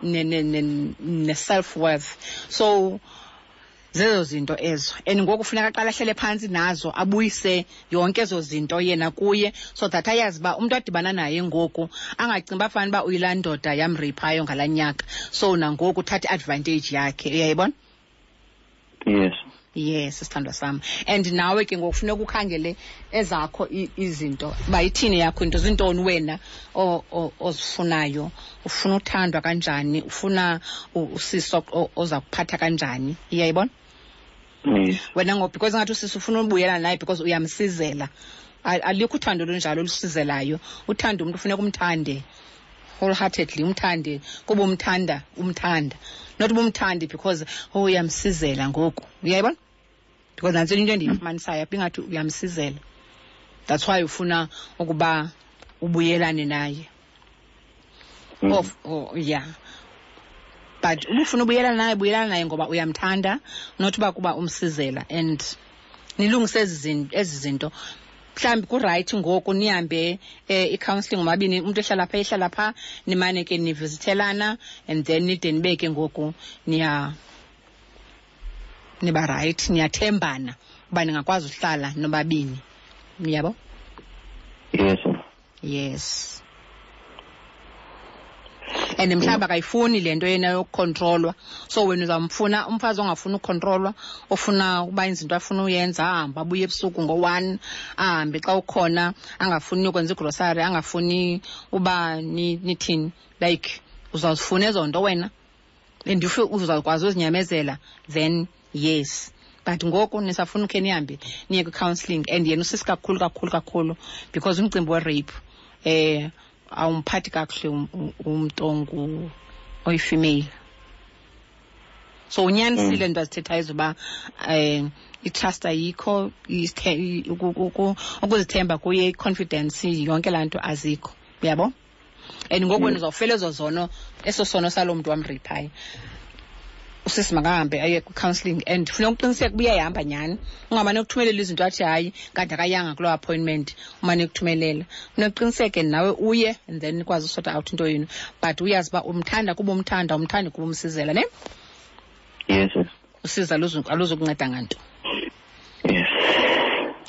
ne-self worth. So zezo zinto ezo, and ngoku funeka aqale ahlele phantsi nazo, abuyise yonke ezo zinto yena kuye, so that ayazi uba umntu adibana naye ngoku angacingi uba fana uba uyilaa ndoda yamreyiphayo ngalaa nyaka, so nangoku uthatha i-advantage yakhe, uyayibona? Yes. Yes, sithandwa sam, and nawe ke ngoku funeka ukhangele ezakho izinto, uba ithini yakho into, zintoni wena ozifunayo, ufuna uthandwa kanjani, ufuna usisi oza kuphatha kanjani, uyayibona? Yes. Wena ngoku, because ngathi usisi ufuna ubuyela naye because uyamsizela. Alikho uthando olunjalo olusizelayo. Uthando, umntu funeka umthande wholeheartedly, umthande kuba umthanda, umthanda, not uba umthande because, oh, uyamsizela ngoku, uyayibona? Because nantsi into endiyifumanisayo apha, ingathi uyamsizela, that's why ufuna ukuba ubuyelane naye. Oh, yeah, but ubufuna ubuyelana naye, buyelana naye ngoba uyamthanda, not uba kuba umsizela, and nilungise ezi zinto. Mhlawumbi kurayithi ngoku nihambe i-counselling ngomabini, umntu ehlala phaa, ehlala phaa, nimane ke nivisithelana, and then nide nibeke ngoku niya niba rayithi, niyathembana uba ningakwazi uhlala nobabini, yabo. Yes. Yes, and mhlawumbi akayifuni le nto yena yokukhontrolwa, so wena uzamfuna umfazi ongafuni ukukhontrolwa, ofuna ukuba izinto afuna uyenza, ahambe abuye ebusuku ngo-1, ahambe xa ukhona, angafuni ukwenza igrosari, angafuni uba nithini, like uzawuzifuna ezo nto wena, and if uzawukwazi uzinyamezela, then yes. But ngoku nisafuna ukhe nihambe niye kwi-counselling, and yena usisi kakhulu kakhulu kakhulu, because umcimbi we-rape awumphathi kakuhle umntu oyi-female. So unyanisile nto azithethayo zoba i-trust ayikho, ukuzithemba kuye, i-confidence, yonke laa nto azikho, uyabo. And ngoku wena uzawufela ezo zono, eso sono saloo mntu wamreyiphayo. Usisi makahambe aye kwi-counselling and funeka uqiniseke uba uyayihamba nyhani, ungamane ukuthumelela izinto athi hayi kanti akayanga kuloo appointment, umane ukuthumelela. Funeka uqiniseke nawe uye and then nikwazi usota out into yenu, but uyazi uba umthanda kuba umthanda, umthandi kuba umsizela, ne? Yes, yes. Usiza aluzukunceda nganto. Yes.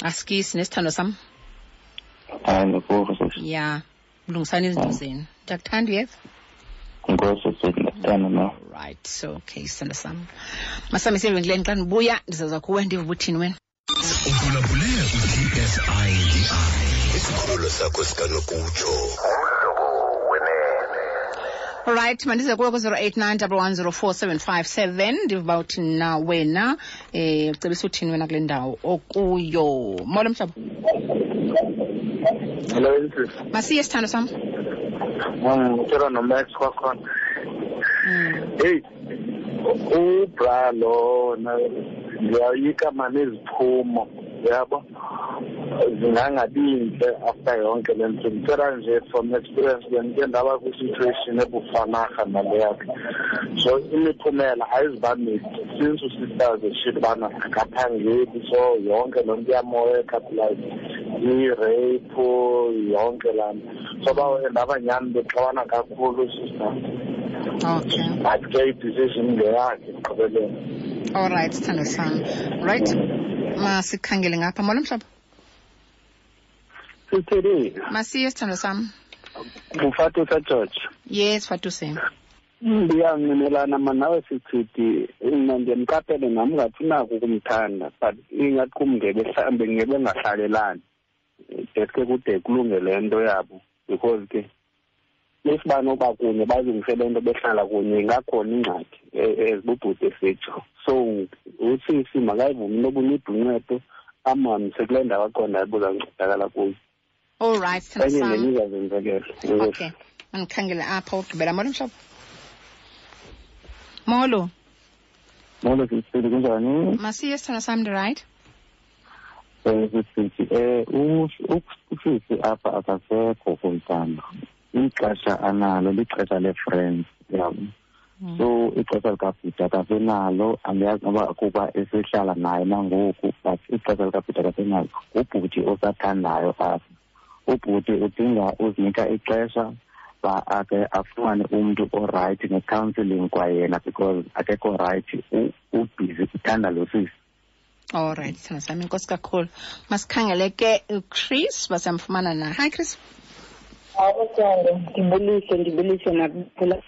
Asikisi nesithandwa sam. Hayi, ndikuva sisi. Ya, lungisani izinto zenu. Ndiyakuthanda, uyeva? Enkosi sisi, ndiyakuthanda nawe. Right, so okay, sithandwa sam. Masami siye evenkileni, xa ndibuya ndizaza kuwe ndive uba uthini wena. Uphulaphule u-TSIDI, isikhululo sakho sikanokutsho. Alright, mandize kuwe ku-089 1104757 ndive uba uthini na wena, ucebisa uthini wena kule ndawo okuyo. Molo mhlobo. Hello, Mrs. Masiye sithando sam. Ngicela noMax kwakhona. Hey, ubra lo ndiyayoyika mani iziphumo, yabo, zingangabi intle after yonke le nto. Ndicela nje from experience, bendike ndaba kwi-situation ebufanarha nale yakhe. So imiphumela ayizuba mihle since usisters eshilo ubana akaphangeli, so yonke loo nto iyamoyeka, like i-rape yonke laa nto. So ndaba nyhani bexabana kakhulu sister. But ke i-decision ngeyakhe ekugqibeleni. All right, sithando sam. Right, masikhangele ngapha. Molo mhlobo. Sithini? Masiye sithando sam. Ngufatusa George. Yes, Fatuse. Ndiyanqinelana mna nawe sithithi, mna ndiyamqaphele nam ngathi unako ukumthanda, but ingathi kum mhlawumbe ngebengahlalelani deske kude kulunge le nto yabo, because ke if banoba kunye balungise le nto behlala kunye ingakhona ingxaki ezibubhuti esitsho. So usisi makayivume into yoba unida uncedo, amhambise kule ndawo aqondayo uba uzancedakala kuyo. All right, sithando Enye sam. nenye izazenzekela. Okay, mandikhangele apha ugqibela. Molo mhlobo. Molo. Molo sisi, kunjani? Masiye sithando sam, ndi-right? Sisi, usisi apha akasekho kumntana. Ixesha analo lixesha le-friends, yabo. So ixesha likabhuti akasenalo, andiyazi noba kuba esehlala naye nangoku, but ixesha likabhuti akasenalo. Ngubhuti osathandayo apha. Ubhuti udinga uzinika ixesha ba ake afumane umntu orayithi ne-counselling kwayena, because akekho rayithi, ubhizi uthanda lo sisi. All right, sithando sami, inkosi kakhulu. Masikhangele ke uChris, basamfumana na. Hi Chris. Awuthando, ndibulise, ndibulise nakuphula.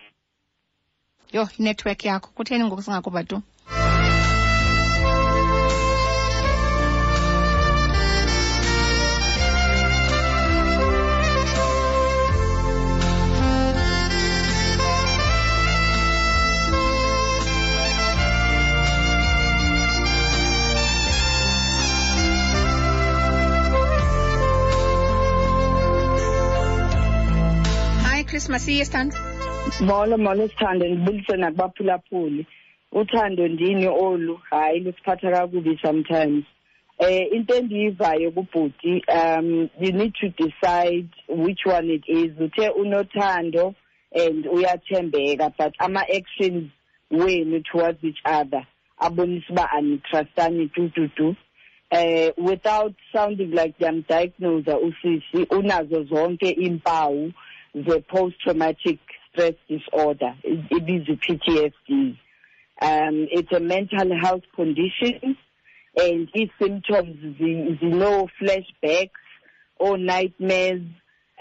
Yho, inetwork yakho kutheni ngoku singakuva tu? Chris, masiye sithando. Molo, molo sithando, ndibulise nakubaphulaphuli. Uthando ndini olu, hayi lusiphatha kakubi sometimes. Into endiyivayo kubhuti, you need to decide which one it is. Uthe unothando and uyathembeka, but ama-actions wenu towards each other abonisa uba anitrustani tu tu tu. Without sounding like ndiyamdiagnose usisi, unazo zonke iimpawu ze-post-traumatic stress disorder, ibizwa i-PTSD. It's a mental health condition, and its symptoms zino flashbacks or nightmares.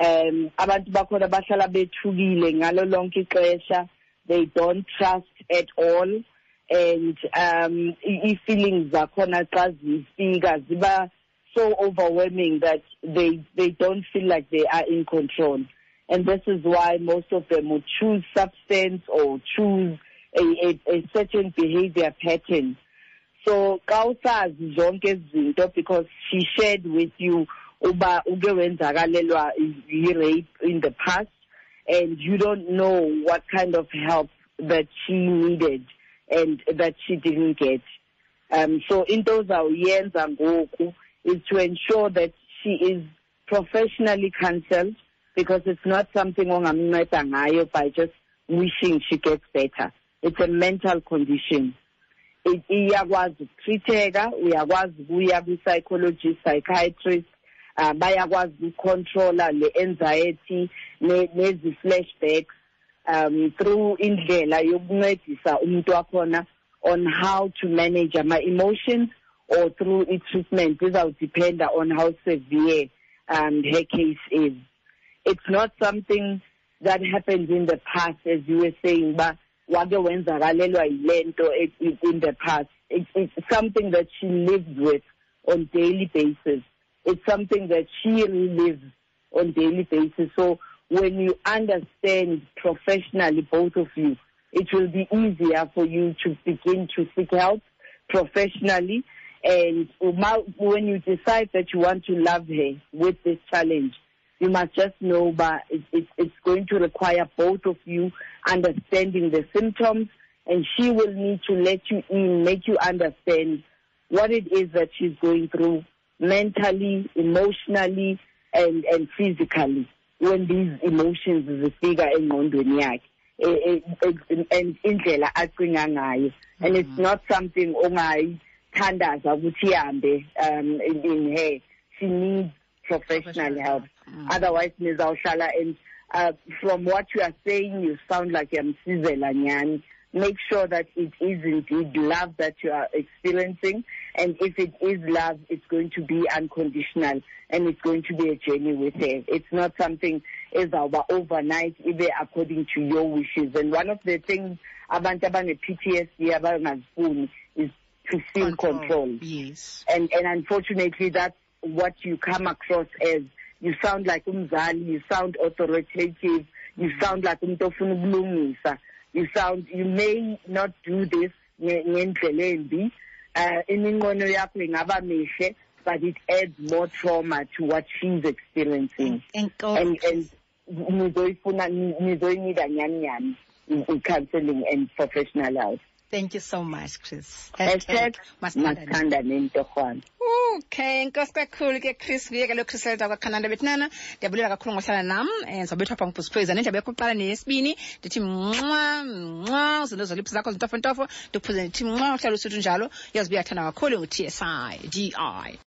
Abantu bakhona bahlala bethukile ngalo lonke ixesha. They don't trust at all, and i-feelings zakhona xa zifika ziba so overwhelming that they don't feel like they are in control. And this is why most of them would choose substance or choose a certain behavior pattern. So xa usazi zonke ezi zinto, because she shared with you uba uke wenzakalelwa yi-rape in the past, and you don't know what kind of help that she needed and that she didn't get. So into ozawuyenza ngoku is to ensure that she is professionally counseled, because it's not something ongamnceda ngayo by just wishing she gets better. It's a mental condition. Iyakwazi ukutreat-eka, uyakwazi ukuya kwi-psychologist, psychiatrist, bayakwazi ukucontrola le anxiety nezi flashbacks through indlela yokuncedisa umuntu wakhona on how to manage ama-emotions or through i-treatment. Izawudependa on how severe her case is. It's not something that happened in the past, as you were saying, but wake wenzakalelwa yile nto in the past. It's something that she lives with on daily basis. It's something that she relives on daily basis. So when you understand professionally, both of you, it will be easier for you to begin to seek help professionally. And when you decide that you want to love her with this challenge, you must just know that it's going to require both of you understanding the symptoms, and she will need to let you in, make you understand what it is that she's going through mentally, emotionally, and physically when these emotions zifika engqondweni yakhe and indlela acinga ngayo. And it's not something ongayithandaza ukuthi ihambe in her. She needs professional help. Otherwise, nizawuhlala, and from what you are saying, you sound like uyamsizela nyani. Make sure that it is indeed love that you are experiencing, and if it is love, it's going to be unconditional and it's going to be a journey with her. It's not something ezawuba overnight, ibe according to your wishes. And one of the things abantu abane-PTSD abangazifuni is to feel controlled. And unfortunately, that's what you come across as. You sound like umzali, you sound authoritative, you sound like umuntu ofuna ukulungisa. You may not do this ngendlela embi, iminqweno yakho ingaba mihle, but it adds more trauma to what she's experiencing. Enkosi. And nizoyifuna, nizoyinida nyani nyani i-counseling and professional help. Thank you so much, Chris. Hashtag masithandane. Masithandane ntorhwana. Okay, enkosi kakhulu ke, Chris. Nguye ke lo Chris Elda kwaKhananda. Bethunana, ndiyabulela kakhulu ngohlala nam. Ndizawubethwa pha ngubhusiphweza nendlebe yakho kuqala neyesibini. Ndithi mnxa mnxa, uzinto zoliphi zakho zintofontofo. Ndikuphuze ndithi mnxa, uhlala usuthu njalo. Uyazi uba uyathanda kakhulu ngu-TSI DI.